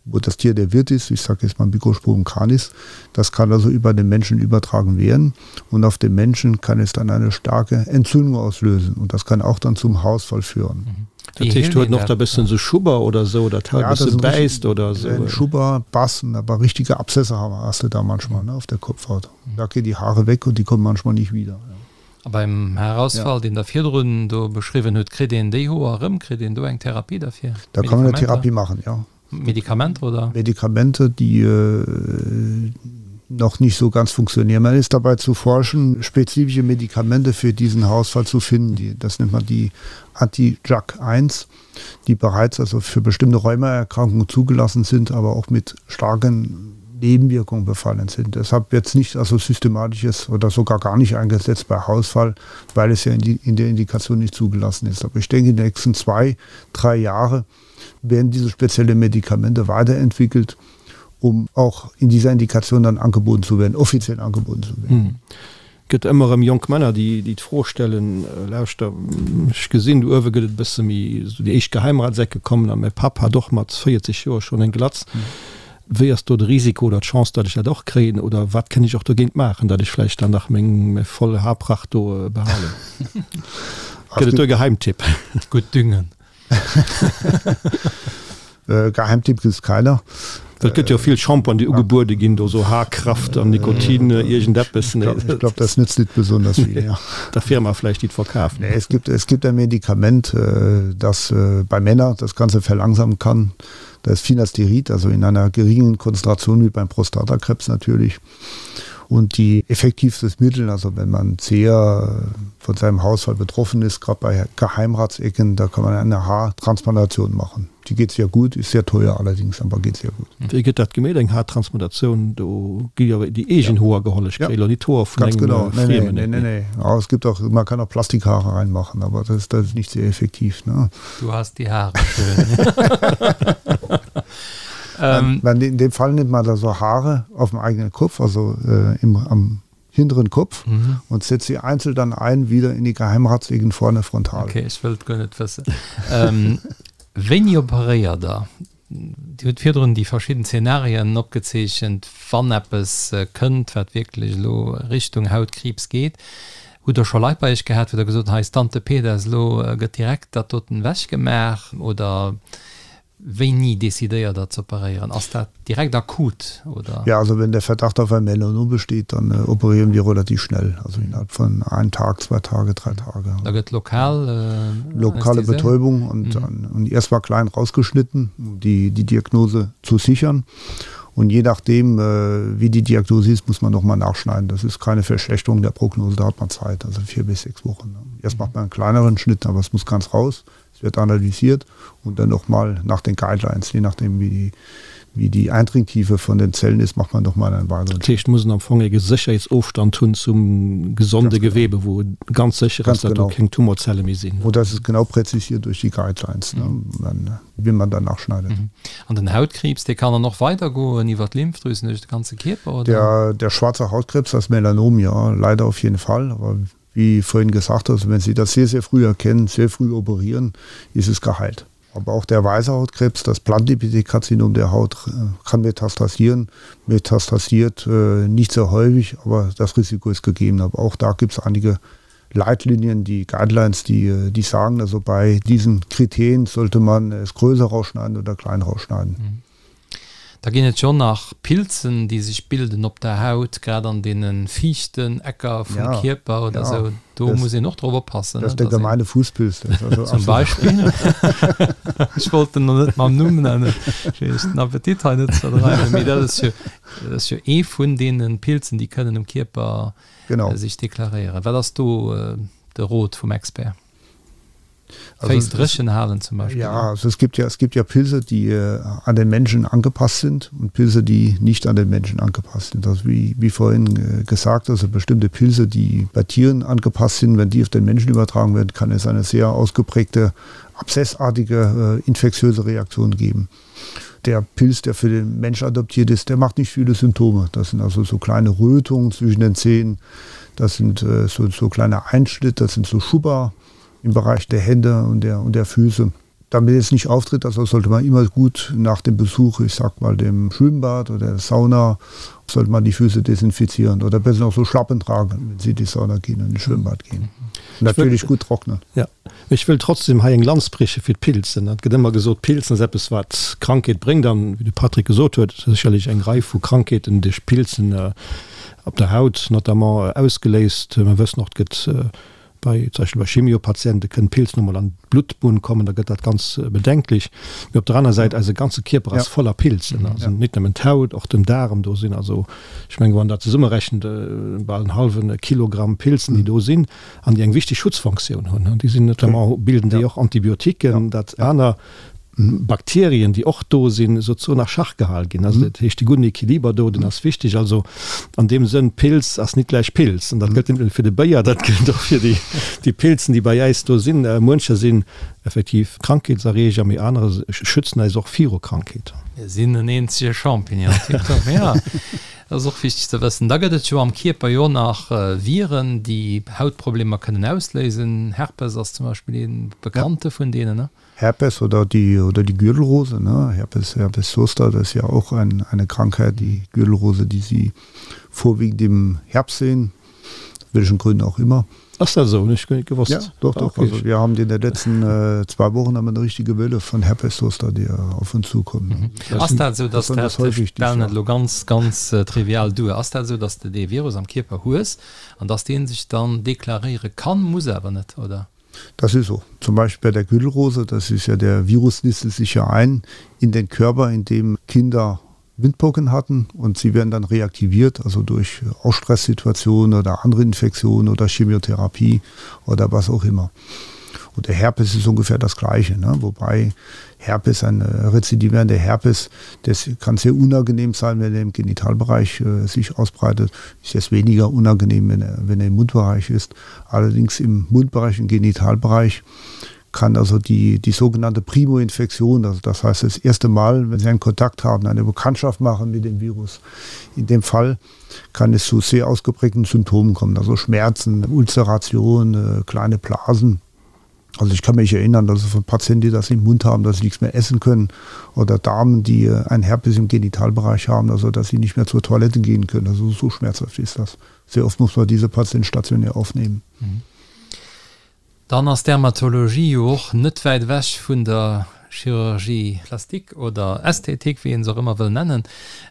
wo das Tier der Wirt ist, ich sage jetzt mal Mikrosporum canis, das kann also über den Menschen übertragen werden und auf dem Menschen kann es dann eine starke Entzündung auslösen und das kann auch dann zum Haarausfall führen. Mhm. Dat heescht, huet en och da bëssen sou Schubber oder sou, oder d'Haut e bësse bäisst oder sou? Schubber, Bassen, aber richtige Abszesse haben hast du da manchmal, ne, auf der Kopfhaut. Da gehen die Haare weg und die kommen manchmal nicht wieder. A beim Haarausfall, deen Der virdrun do beschriwwen hutt, kritt een déi Hoer erëm? Kritt een do eng Therapie derfir? Da kann man eine Therapie machen, ja. Medikamenter oder? Medikamente, die noch nicht so ganz funktionieren. Man ist dabei zu forschen, spezifische Medikamente für diesen Haarausfall zu finden. Die, das nennt man die Anti-JAK1, die bereits also für bestimmte Rheumaerkrankungen zugelassen sind, aber auch mit starken Nebenwirkungen befallen sind. Deshalb wird es nicht also systematisches oder sogar gar nicht eingesetzt bei Haarausfall, weil es ja in, die, in der Indikation nicht zugelassen ist. Aber ich denke, in den nächsten zwei, drei Jahre werden diese spezielle Medikamente weiterentwickelt, um auch in dieser Indikation dann angeboten zu werden, offiziell angeboten zu werden. Gëtt ëmmer erëm jonk Männer, déi déi d'Fro stellen, Lauschter, ech gesinn, do uewe gëtt et e bësse méi, esou déi éischt Geheimratseck gekommen a mäi Papp hat och mat 40 Joer schonn eng Glatz. Wéi ass do de Risiko oder d'Chance, datt ech dat och kréien oder wat kënn ech och dogéint maachen, datt ech vläicht dann nach meng mäi voll Haarpracht do behalen? Gëtt et do e Geheimtipp? Gutt düngen. Geheimtipp gibt's keiner. Et gëtt jo vill Shampointen déi ugebuede ginn, do sou Haarkraft an Nikotin iergendeppes. Ich glaub das nützt nicht besonders viel, ja. Der Firma vläicht déi et verkaaft. Nee, es gibt, es gibt ein Medikament, das bei Männer das Ganze verlangsamen kann. Das ist Finasterid, also in einer geringen Konzentration wie beim Prostatakrebs natürlich. Und die effektivstes Mittel, also wenn man sehr von seinem Haushalt betroffen ist, gerade bei Geheimratsecken, da kann man eine Haartransplantation machen. Die geht sehr gut, ist sehr teuer allerdings, aber geht sehr gut. Wéi gëtt dat gemeet, eng Haartransplantatioun? Do gi jo déi eegen Hoer geholl, ech kréie lo nit d'Hoer vun engem Friemen. Nee, nee, nee. Ja, es gibt auch, man kann auch Plastikhaare reinmachen, aber das, das ist nicht sehr effektiv. Ne? Du hast die Haare schön. Ähm, in dem Fall nimmt man da so Haare auf dem eigenen Kopf, also äh, im, am hinteren Kopf mhm. und setzt sie einzeln dann ein wieder in die Geheimratsecken vorne frontal. Okay, ech wëllt guer net wëssen. Ähm, wéini operéiert Der? Dir hutt virdrun déi verschidden Zenarien opgezeechent, wann eppes äh, kënnt, wat wierklech elo Richtung Hautkriibs geet. Hutt Der scho Leit bei Iech gehat, wou Der gesot hutt, hei ass Tante Peters, elo äh, gëtt direkt dat doten ewechgemaach? Oder Wéini decidéiert der z'operéieren? Ass dat direkt akut oder? Ja, also wenn der Verdacht auf ein Melanom besteht, dann operieren wir relativ schnell, also innerhalb von einem Tag, zwei Tage, drei Tage. Da gëtt lokal Lokale Betäubung und dann und erst mal klein rausgeschnitten, um die die Diagnose zu sichern. Und je nachdem, wie die Diagnose ist, muss man noch mal nachschneiden. Das ist keine Verschlechterung der Prognose, da hat man Zeit, also vier bis sechs Wochen. Erst macht man einen kleineren Schnitt, aber es muss ganz raus. Es wird analysiert und dann nochmal nach den Guidelines, je nachdem wie die, wie die Eindringtiefe von den Zellen ist, macht man nochmal einen weiteren. Dat heescht, muss en am Fong e Sécherheetsofstand hunn zum gesonde Gewebe, wou ganz sécher ass, datt do keng Tumorzelle méi sinn. Und das ist genau präzisiert durch die Guidelines, wie man danach schneidet. An den Hautkriibs, dee kann dann och weidergoen iwwer d'Lymphdrüsen duerch de ganze Kierper, oder? Der, der schwarze Hautkrebs, das Melanom, ja, leider auf jeden Fall. Aber. Wie vorhin gesagt, also wenn Sie das sehr, sehr früh erkennen, sehr früh operieren, ist es geheilt. Aber auch der weiße Hautkrebs, das Plantepithelkarzinom der Haut äh, kann metastasieren, metastasiert äh, nicht sehr häufig, aber das Risiko ist gegeben. Aber auch da gibt es einige Leitlinien, die Guidelines, die, äh, die sagen, also bei diesen Kriterien sollte man es größer rausschneiden oder klein rausschneiden. Mhm. Da ginn et jo nach Pilzen, déi sech bilden op der Haut, grad an deene fiichten Ecker vum Ja, Kierper oder ja. esou. Do Das, muss een och drop oppassen, das ne, ist der dass een. gemeine Fußpilz. Das ist also Zum absolut. Beispill. Ech wollt en elo net mam Numm nennen, fir iech den Appetit hei net ze verdreiwen, mee dat ass jo, dat ass jo ee vun deene Pilzen, déi kënnen um Kierper Genau. sech deklaréieren. Wat ass do de Rot vum Expert? Also, dréchen halen zum Beispiel. Ja, also es gibt ja, es gibt ja Pilze, die äh, an den Menschen angepasst sind und Pilze, die nicht an den Menschen angepasst sind. Also wie, wie vorhin äh, gesagt, also bestimmte Pilze, die bei Tieren angepasst sind, wenn die auf den Menschen übertragen werden, kann es eine sehr ausgeprägte abszessartige äh, infektiöse Reaktion geben. Der Pilz, der für den Mensch adoptiert ist, der macht nicht viele Symptome. Das sind also so kleine Rötungen zwischen den Zähnen, das sind äh, so, so kleine Einschnitte, das sind so Schubber im Bereich der Hände und der, und der Füße. Damit es nicht auftritt, also sollte man immer gut nach dem Besuch, ich sag mal dem Schwimmbad oder der Sauna, sollte man die Füße desinfizieren oder besser noch so Schlappen tragen, wenn sie in die Sauna gehen und in Schwimmbad gehen. Und natürlich gut trocknen. Ja. Ech wëll trotzdem hei eng Lanz brieche fir d'Pilzen. Et gëtt ëmmer gesot, Pilzen ass eppes wat Krankheet bréngt an wéi de Patrick gesot huet, sécherlech eng Rei vu Krankheeten duerch Pilzen op der Haut notamment ausgeléist. Mer wëssen och, et gëtt bei zum Beispill bei Chemiopatiente kënnen Pilzen och mol an d'Bluttbunn kommen, da gëtt dat ganz bedenklech. Mee op der aner Säit, eise ganze Kierper ass voller Pilzen, also net nëmmen d'Haut, och den Daarem, do sinn also, ech mengen, wann dat zesummerechent, bal en hallwe Kilogramm Pilzen, déi do sinn an déi eng wichteg Schutzfunktioun hunn. Déi sinn notamment, bilden déi och Antibiotiquen, dat aner Bakterien, déi och do sinn, souzesoen a Schach gehal ginn. Also dat heescht, de gudden Equiliber do, deen ass wichteg. Also an deem Sënn, Pilz ass nit gläich Pilz. An dat gëllt net nëmme fir de Béier, dat gëllt och fir déi, déi Pilzen, déi bei äis do sinn. Muencher sinn effektiv Krankheetserreeger, mee anerer schützen äis och viru Krankheeten. Mir sinn en eenzege Champignon. Tiptop, jo. Dat ass och wichteg ze wëssen. Da gëtt et jo am Kierper jo nach Viren, déi Hautproblemer kënnen ausléisen. Herpes ass zum Beispill ee bekannte vun deenen, ne? Herpes oder die, oder die Gürtelrose, ne? Herpes, Herpes zoster, das ist ja auch ein, eine Krankheit, die Gürtelrose, die Sie vorwiegend im Herbst sehen, welchen Gründen auch immer. Ass dat esou? Hunn ech guer net gewosst. Ja, doch, doch. Okay. Also wir haben in den letzten äh, zwei Wochen haben wir eine richtige Welle von Herpes zoster, die äh, auf uns zukommen. Mhm. Ass dat esou, dass dat, ech stellen et elo ganz, ganz äh, trivial duer, ass dat esou, dass de dee Virus am Kierper hues an dass dee sech dann deklaréiere kann, muss awer net, oder? Das ist so. Zum Beispiel bei der Gürtelrose, das ist ja der Virus nistet sich ja ein in den Körper, in dem Kinder Windpocken hatten und sie werden dann reaktiviert, also durch Ausstresssituationen oder andere Infektionen oder Chemotherapie oder was auch immer. Und der Herpes ist ungefähr das gleiche, ne? wobei Herpes ein äh, rezidivierender Herpes, das kann sehr unangenehm sein, wenn er im Genitalbereich äh, sich ausbreitet, ist es weniger unangenehm, wenn er, wenn er im Mundbereich ist. Allerdings im Mundbereich und Genitalbereich kann also die, die sogenannte Primoinfektion, also das heißt das erste Mal, wenn Sie einen Kontakt haben, eine Bekanntschaft machen mit dem Virus, in dem Fall kann es zu sehr ausgeprägten Symptomen kommen, also Schmerzen, Ulzeration, äh, kleine Blasen. Also ich kann mich erinnern, dass es von Patienten, die das im Mund haben, dass sie nichts mehr essen können oder Damen, die äh, ein Herpes im Genitalbereich haben, also dass sie nicht mehr zur Toilette gehen können. Also so schmerzhaft ist das. Sehr oft muss man diese Patienten stationär aufnehmen. Mhm. Dann ass Dermatologie jo och net wäit ewech vun der Chirurgie plastique oder Ästhetik, wéi een se och ëmmer wëll nennen.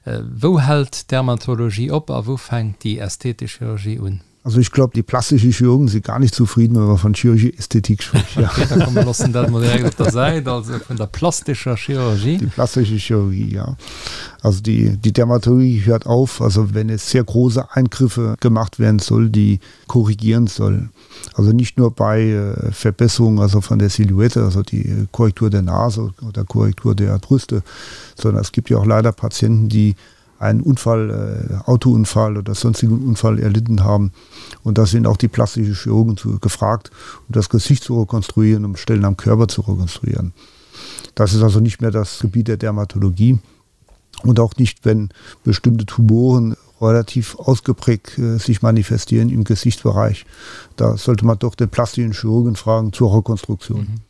Wou hält d'Dermatologie op a wou fänkt déi ästhetesch Chirurgie un? Also ich glaube, die plastischen Chirurgen sind gar nicht zufrieden, wenn man von Chirurgie Ästhetik spricht. Ja. Okay, da komm, mir loossen dat mol direkt op der Säit, also vun der plastescher Chirurgie. Die plastische Chirurgie, ja. Also die, die Dermatologie hört auf, also wenn es sehr große Eingriffe gemacht werden soll, die korrigieren soll. Also nicht nur bei äh, Verbesserung also von der Silhouette, also die Korrektur der Nase oder Korrektur der Brüste, sondern es gibt ja auch leider Patienten, die einen Unfall, äh, Autounfall oder sonstigen Unfall erlitten haben. Und da sind auch die plastischen Chirurgen zu, gefragt, um das Gesicht zu rekonstruieren, um Stellen am Körper zu rekonstruieren. Das ist also nicht mehr das Gebiet der Dermatologie und auch nicht, wenn bestimmte Tumoren, relativ ausgeprägt äh, sich manifestieren im Gesichtsbereich. Da sollte man doch den plastischen Chirurgen fragen zur Rekonstruktion. Mhm.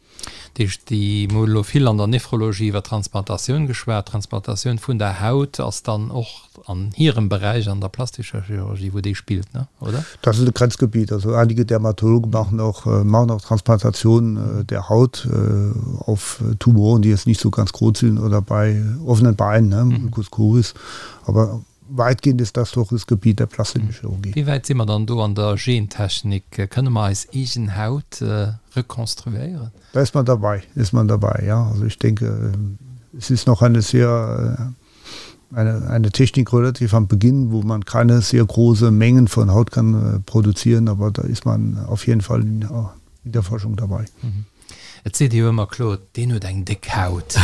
Dat heescht, déi, mir hu elo vill an der Nephrologie iwwer Transplantatioun geschwat, Transplantatioun vun der Haut ass dann och an hirem Beräich, an der plastescher Chirurgie, wou déi spillt, ne, oder? Das ist ein Grenzgebiet. Also einige Dermatologen machen auch, äh, machen auch Transplantationen äh, der Haut äh, auf Tumoren, die jetzt nicht so ganz groß sind oder bei offenen Beinen, ne, mhm. Ulcus cruris. Aber weitgehend ist das doch das Gebiet der plastischen Chirurgie. Wéi wäit si mer dann do an der Gentechnik? Kënne mer eis eegen Haut rekonstruéieren? Da ist man dabei, ist man dabei, ja. Also ich denke, es ist noch eine sehr eine, eine Technik relativ am Beginn, wo man keine sehr große Mengen von Haut kann produzieren, aber da ist man auf jeden Fall in, in der Forschung dabei. Mhm. Et seet ee jo ëmmer, Claude, deen huet eng déck Haut,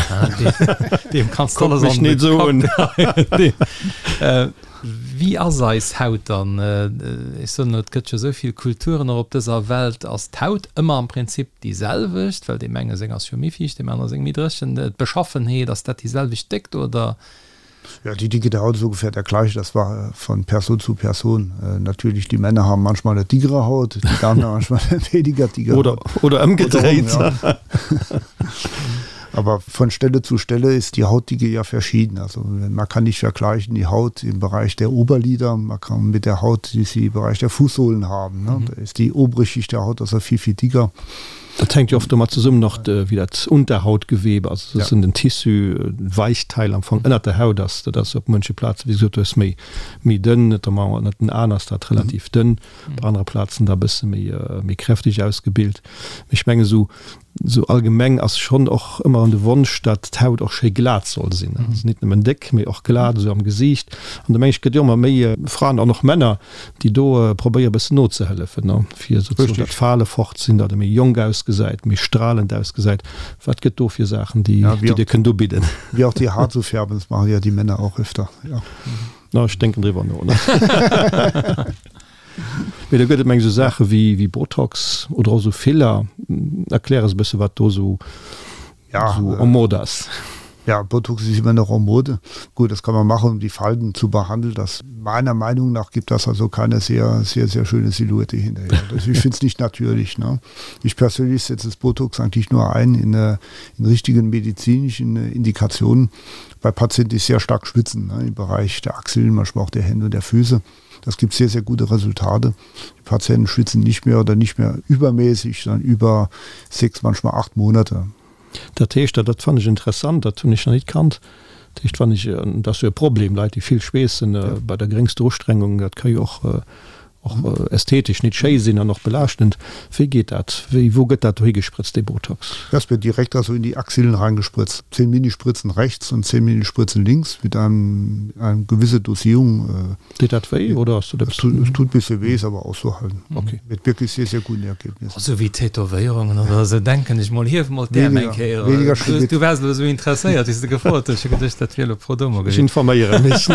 deem kanns de alles an de Kapp geheien. Wéi ass eis Haut dann? Ech soen elo, et gëtt jo esou vill Kulturen och op dëser Welt. Ass d'Haut ëmmer am Prinzip déi selwecht? Well deem enge seng ass jo méi fiicht, deem anere seng méi dréchen. D'Beschaffenheet, ass dat déi selwecht Déckt oder? Ja, die Dicke der Haut ist ungefähr der gleiche. Das war äh, von Person zu Person. Äh, natürlich, die Männer haben manchmal eine dickere Haut, die Damen haben manchmal eine weniger dicke oder, Haut. Oder umgedreht. Oder um, ja. Aber von Stelle zu Stelle ist die Hautdicke ja verschieden. Also man kann nicht vergleichen die Haut im Bereich der Oberlider, man kann mit der Haut, die sie im Bereich der Fußsohlen haben. Ne? Mhm. Da ist die obere Schicht der Haut also viel, viel dicker. Dat hänkt jo oft domat zesummen och wéi dat Unterhautgewebe, also dat sinn den Tissu, Weichteil am Fong ënnert der Haut ass. Dat ass op munche Plaze wéi gesot hues méi méi dënn, notamment ënnert den Aen ass dat relativ dënn, op anere Plazen da e bësse méi méi kräfteg ausgebilt. Mee ech mengen esou esou allgemeng ass schonn och ëmmer de Wonsch, datt d'Haut och schéi glat soll sinn, also nit nëmmen déck, mee och glat esou am Gesiicht. An do meng ech gëtt jo ëmmer méi Fraen an och Männer, déi do probéiere bëssen nozehëllefen, ne, fir souzesoen dat Fale fort sinn, datt e méi jonk ausgesäit, méi stralend ausgesäit. Wat gëtt do fir Saachen, déi déi Dir kënnt ubidden? Wie auch die Haar zu färben, das machen ja die Männer auch öfter, ja. Na, ech denken driwwer no, ne. Mee do gëtt et meng esou Saache wéi wéi Botox oder och esou Filler. Erklär eis e bësse wat do esou ja, so en mode ass. Ja, Botox ist immer noch en mode. Gut, das kann man machen, um die Falten zu behandeln. Das meiner Meinung nach gibt das also keine sehr sehr sehr schöne Silhouette hinterher. Also ich finde es nicht natürlich. Ne? Ich persönlich setze das Botox eigentlich nur ein in, äh, in richtigen medizinischen äh, Indikationen bei Patienten, die sehr stark schwitzen ne? im Bereich der Achseln, manchmal auch der Hände und der Füße. Das gibt sehr sehr gute Resultate. Die Patienten schwitzen nicht mehr oder nicht mehr übermäßig, sondern über sechs, manchmal acht Monate. Dat heescht, dat fannen ech interessant, dat hunn ech nach nit kannt, dat heescht, wann ech, dat ass jo e Problem, Leit déi vill schweessen bei der geréngster Ustrengung, dat ka jo och och ästhetesch nit schéi sinn an och belaaschtend. Wéi geet dat? Wéi, wou gëtt dat dohi gesprëtzt, dee Botox? Das wird direkt also in die Achsillen reingespritzt. 10 Minispritzen rechts und 10 Minispritzen links mit einem, einem gewisse Dosierung. Deet dat wéi oder ass dat eppes? Es tut bisse wéi, ist aber auszuhalten. Okay. Mit wirklich sehr, sehr guten Ergebnissen. Esou wéi Tätowéierungen oder esou denken ech mol. Hief mol d'Äerm eng Kéier. Weniger schlimm. Du waars elo esou interesséiert wéi s de gefrot hues. Ech hu geduecht dat wier elo pro domo gewiescht. Ech informéiere mech.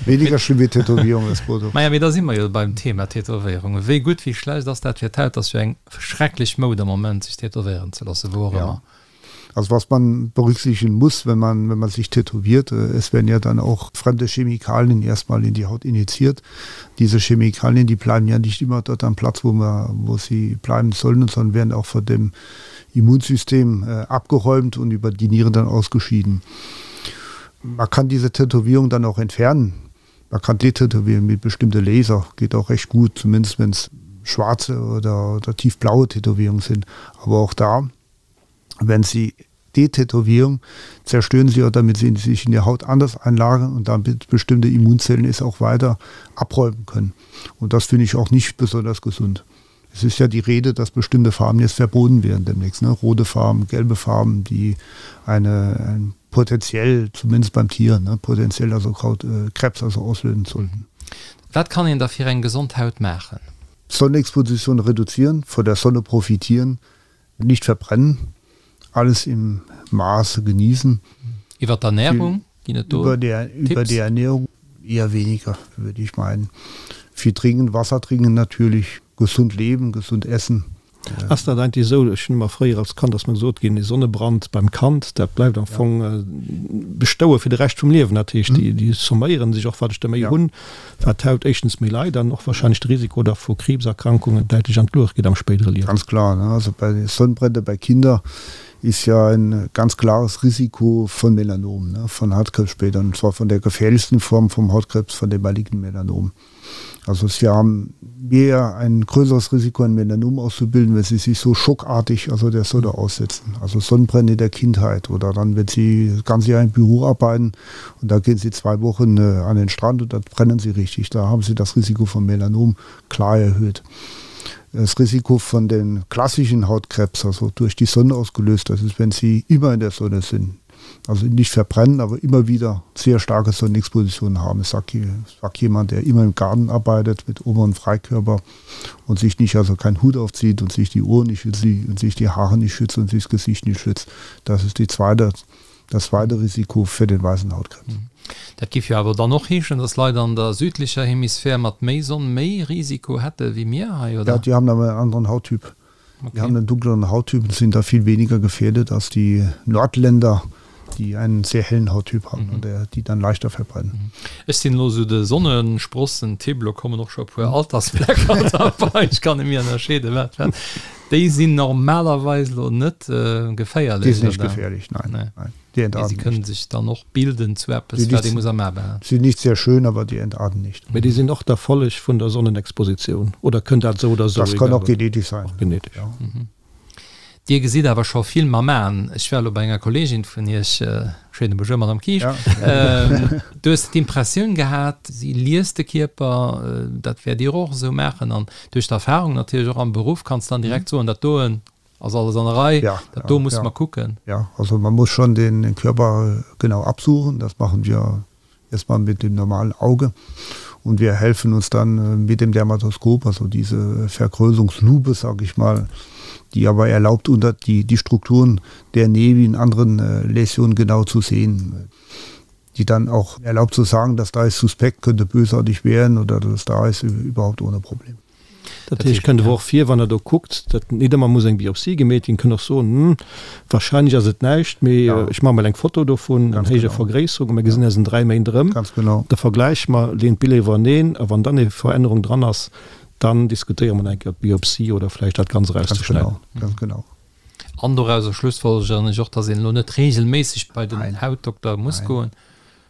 Weniger schlimm wéi Tätowierung ass Botox. Maja, mee da si mer jo beim Thema Tätowéierungen. Wéi gutt, wéi schlecht ass dat fir d'Haut? Ass jo eng schrecklech Moud am Moment sech tätowéieren ze loossen, wou och ëmmer. Also was man berücksichtigen muss, wenn man, wenn man sich tätowiert, äh, es werden ja dann auch fremde Chemikalien erstmal in die Haut injiziert. Diese Chemikalien, die bleiben ja nicht immer dort am Platz, wo, man, wo sie bleiben sollen, sondern werden auch von dem Immunsystem äh, abgeräumt und über die Nieren dann ausgeschieden. Man kann diese Tätowierung dann auch entfernen. Man kann detätowieren mit bestimmte Laser, geht auch recht gut, zumindest wenn es schwarze oder, oder tiefblaue Tätowierungen sind. Aber auch da, wenn sie Detätowierung zerstören sie oder damit sie sich in der Haut anders einlagern und damit bestimmte Immunzellen es auch weiter abräumen können. Und das finde ich auch nicht besonders gesund. Es ist ja die Rede, dass bestimmte Farben jetzt verboten werden demnächst ne? Rote Farben, gelbe Farben, die eine, ein potenziell zumindest beim Tier ne? potenziell also Kraut, äh, Krebs also auslösen sollten. Wat kann een da fir eng gesond Haut maachen? Sonnenexposition reduzieren, von der Sonne profitieren, nicht verbrennen, alles im Maße genießen. Iwwer d'Ernährung ginn et do Über der, über Tipps? die Ernährung eher weniger, würde ich meinen. Viel trinken, Wasser trinken natürlich, gesund leben, gesund essen. Ass dat eigentlech esou, ech hunn ëmmer fréier als Kand ass mer gesot ginn, ee Sonnebrand beim Kand, dat bleift am Fong bestoue fir de Rescht vum Liewen. Dat heescht, déi déi somméieren sech och, wat ech der méi hunn, wat d'Haut éischtens méi leit an och wahrscheinlech de Risiko da vu Kriibserkrankungen däitlech an d'Luecht geet am spéidere Liewen. Ganz klar, ne? Also bei Sonnenbrände bei Kinder ist ja ein ganz klares Risiko von Melanom, ne, von Hautkrebs später, und zwar von der gefährlichsten Form vom Hautkrebs, von dem malignen Melanom. Also sie haben mehr ein größeres Risiko, ein Melanom auszubilden, wenn sie sich so schockartig also der Sonne aussetzen. Also Sonnenbrände in der Kindheit oder dann, wenn sie das ganze Jahr im Büro arbeiten und da gehen sie zwei Wochen äh, an den Strand und dann brennen sie richtig. Da haben sie das Risiko von Melanom klar erhöht. Das Risiko von den klassischen Hautkrebs, also durch die Sonne ausgelöst, das ist, wenn sie immer in der Sonne sind also nicht verbrennen, aber immer wieder sehr starke Sonnenexpositionen haben. Ich sag, sag jemand, der immer im Garten arbeitet mit oberen Freikörper und sich nicht also keinen Hut aufzieht und sich die Ohren nicht schützt und sich die Haare nicht schützt und sich das Gesicht nicht schützt. Das ist die zweite, das zweite Risiko für den weißen Hautkrebs. Mhm. Dat géif jo awer dann och heeschen, dass Leit an der südlicher Hemisphär mat méi Sonn méi Risiko hätte wéi mir hei, oder? Ja, die haben awer en anderen Hauttyp. Okay. Die haben einen dunkleren Hauttyp und sind da viel weniger gefährdet als die Nordländer, die einen sehr hellen Hauttyp haben mhm. und der, die dann leichter verbrennen. Mhm. Ech sinn elo sou de Sonnensprossen-Typ, lo kommen och scho e puer Altersflecker derbei, ech kann net méi ënnerscheeden, wat wat. Déi sinn normalerweis lo net geféierlech, Die sind nicht gefährlich, nein. Nee. nein. Die entarten nicht. Si kënnen sech dann och bilden zu eppes, wat ee muss am A behalen. Sind nicht sehr schön, aber die entarten nicht. Mee déi sinn och der Folleg vun der Sonnenexpositioun, oder kënnt dat esou oder esou? Das kann och genetisch sein. Och genetisch. Ja. Dir gesitt awer scho vill mam Aen. Ech war elo bei enger Kolleegin vun Iech, schéine Bonjour, Madame Kisch, du hues d'Impressioun gehat, si liest de Kierper, dat wäert Dir och esou maachen an duerch d'Erfahrung natierlech och am Beruff kanns dann direkt soen, dat doen ass alles an der Rei, dat do musse mer kucken. Ja, also man muss schon den Körper genau absuchen, das machen wir erstmal mit dem normalen Auge und wir helfen uns dann mit dem Dermatoskop, also diese Vergrößerungslupe, sag ich mal, die aber erlaubt unter die, die Strukturen der Nevi in anderen äh, Läsionen genau zu sehen die dann auch erlaubt zu sagen, dass da ist suspekt könnte bösartig werden oder dass da ist überhaupt ohne Problem. Dat heescht, kënnt awer och vir, wann Der do kuckt, datt nit ëmmer muss eng Biopsie gemeet ginn, kënnt och soen, Hm, wahrscheinlech ass et näischt, mee ech maache mol eng Foto dovun an héijer Vergréisserung a mir gesinn eis an 3 Méint erëm. Da vergläiche mer, leeën d'Biller iwwereneen a wann dann eng Verännerung dran ass, dann diskutéiere mer nach eng Kéier d'Biopsie oder vläicht dat Ganzt erauszeschneiden. Ganz genau. An dorauser schlussfolgeren ech och, datt een elo net reegelméisseg bei den Hautdokter muss goen.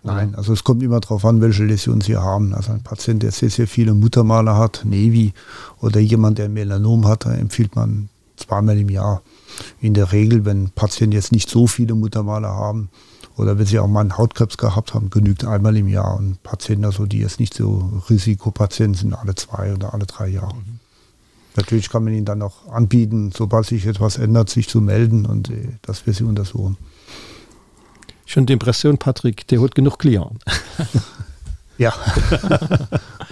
Nein, also es kommt immer darauf an, welche Läsion Sie haben. Also ein Patient, der sehr, sehr viele Muttermale hat, Nevi oder jemand, der ein Melanom hat, da empfiehlt man zweimal im Jahr. In der Regel, wenn Patienten jetzt nicht so viele Muttermale haben oder wenn sie auch mal einen Hautkrebs gehabt haben, genügt einmal im Jahr. Und Patienten, also die jetzt nicht so Risikopatienten sind, alle zwei oder alle drei Jahre. Mhm. Natürlich kann man ihnen dann auch anbieten, sobald sich etwas ändert, sich zu melden und äh, dass wir sie untersuchen. Ech hunn d'Impressioun, Patrick, Dir hutt genuch Clienten. Ja,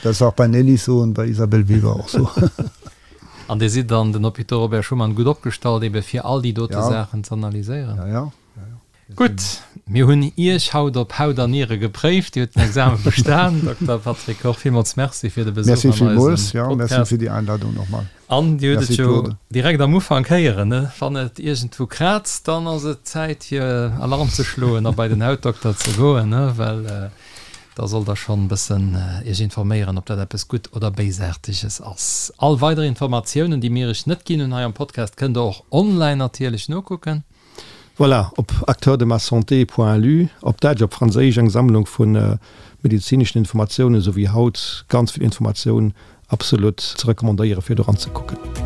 das ist auch bei Nelly so und bei Isabelle Weber auch so. An Dir sidd an den Hôpitaux Robert Schuman gutt opgestallt, ebe fir all déi dote Saachen z'analyséieren? Ja, ja. Gutt, mir hunn Iech haut op Haut an Niere gepréift. Dir hutt den Examen bestan, Dokter Patrick Koch. Villmools Merci fir de Besuch an eisem Podcast. Merci villmools, ja, merci fir déi Einladung nochmal. An Dir hutt et jo direkt am Ufank héieren, ne? Wann et iergendwou kraazt, dann ass et Zäit fir Alarm ze schloen a bei den Hautdokter ze goen, ne? Well da sollt Der schonn e bëssen Iech informéieren, ob dat eppes gutt oder Béisaarteges ass. All weider Informatiounen, déi mir Iech net ginn hunn hei am Podcast, kënnt Der och online natierlech nokucken. Voilà, op acteurdemassanté.lu, op Däitsch, op Franséisch, eng Sammlung vu medezineschen Informatiounen, esou wéi haut ganz vill Informatioun, absolut ze recommandéieren, fir do ranzekucken.